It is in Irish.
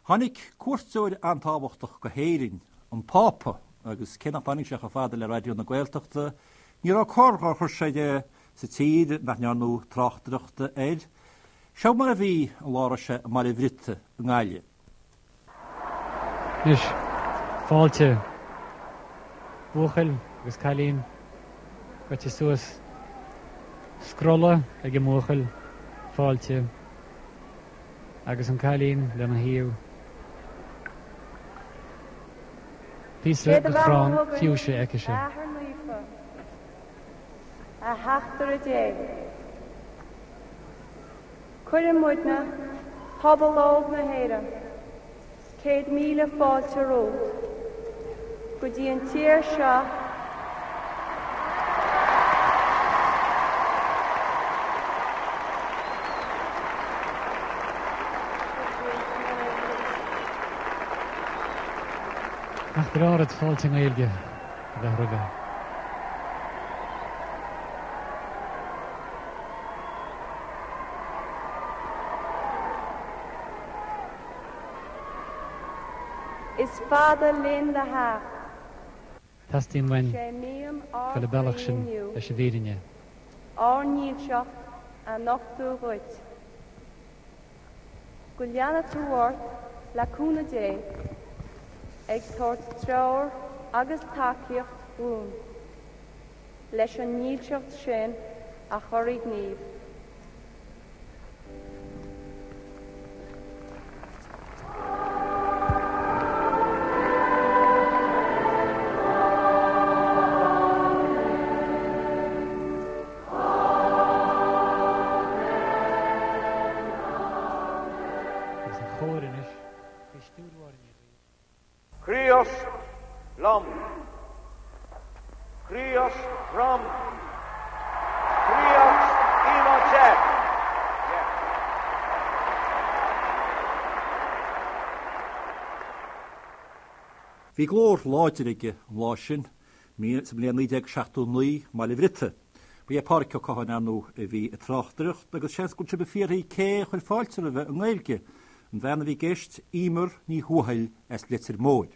Tháinig cuairteoir an-tábhachtach go hÉirinn, an Pápa, agus cé nach dtáinig sé chomh fada le Raidió na Gaeltachta, ní raibh cor dhár chuir sé de sa tír nach ndearnadh tráchtaireacht air. Seo mar a bhí an lá a raibh sé i mBaile Bhriotaigh i nGaillimh. Anois, fáilte, buachaill agus cailín gaibhte suas. Scrolla ag an mbuachaill, fáilte, agus an cailín lena thaobh. Píosa Sé do de bheatha chrann chugainn, fiúise aicise. a Athair Naofa, a Theachtaire Dé. Cuireann muidne, pobal óg na hÉireann, 100,000 fáilte romhat go dtí an tír seo. Nach breá rud fáilte i nGaeilge a bheith roimhe. Is fada linn do theacht. Teastaíonn uainn Sé mian ár dul an bealach gcroí sin inniu. leis an bhfírinne. Ár ndílseacht a nochtadh dhuit. Go leana tú ort le cúnamh Dé ag tabhairt treoir agus tacaíocht dhúinn. leis an ndílseacht sin a chur i ngníomh. Agus an chóir anois faoi stiúir Mháire Ní Riain. Críost liom. Críost romham. Críost i mo te. Bhí glór láidir aige an lá sin, sa mbliain 1979, i mBaile Bhriotaigh. Ba é Pádraic Ó Catháin, ar ndóigh, a bhí ag tráchtaireacht agus seans go bhfuil sibh ag fiafraí cé a chuir fáilte roimhe i nGaeilge. An bhean a bhí i gceist, Emer Ní Thuathail as Leitir Móir.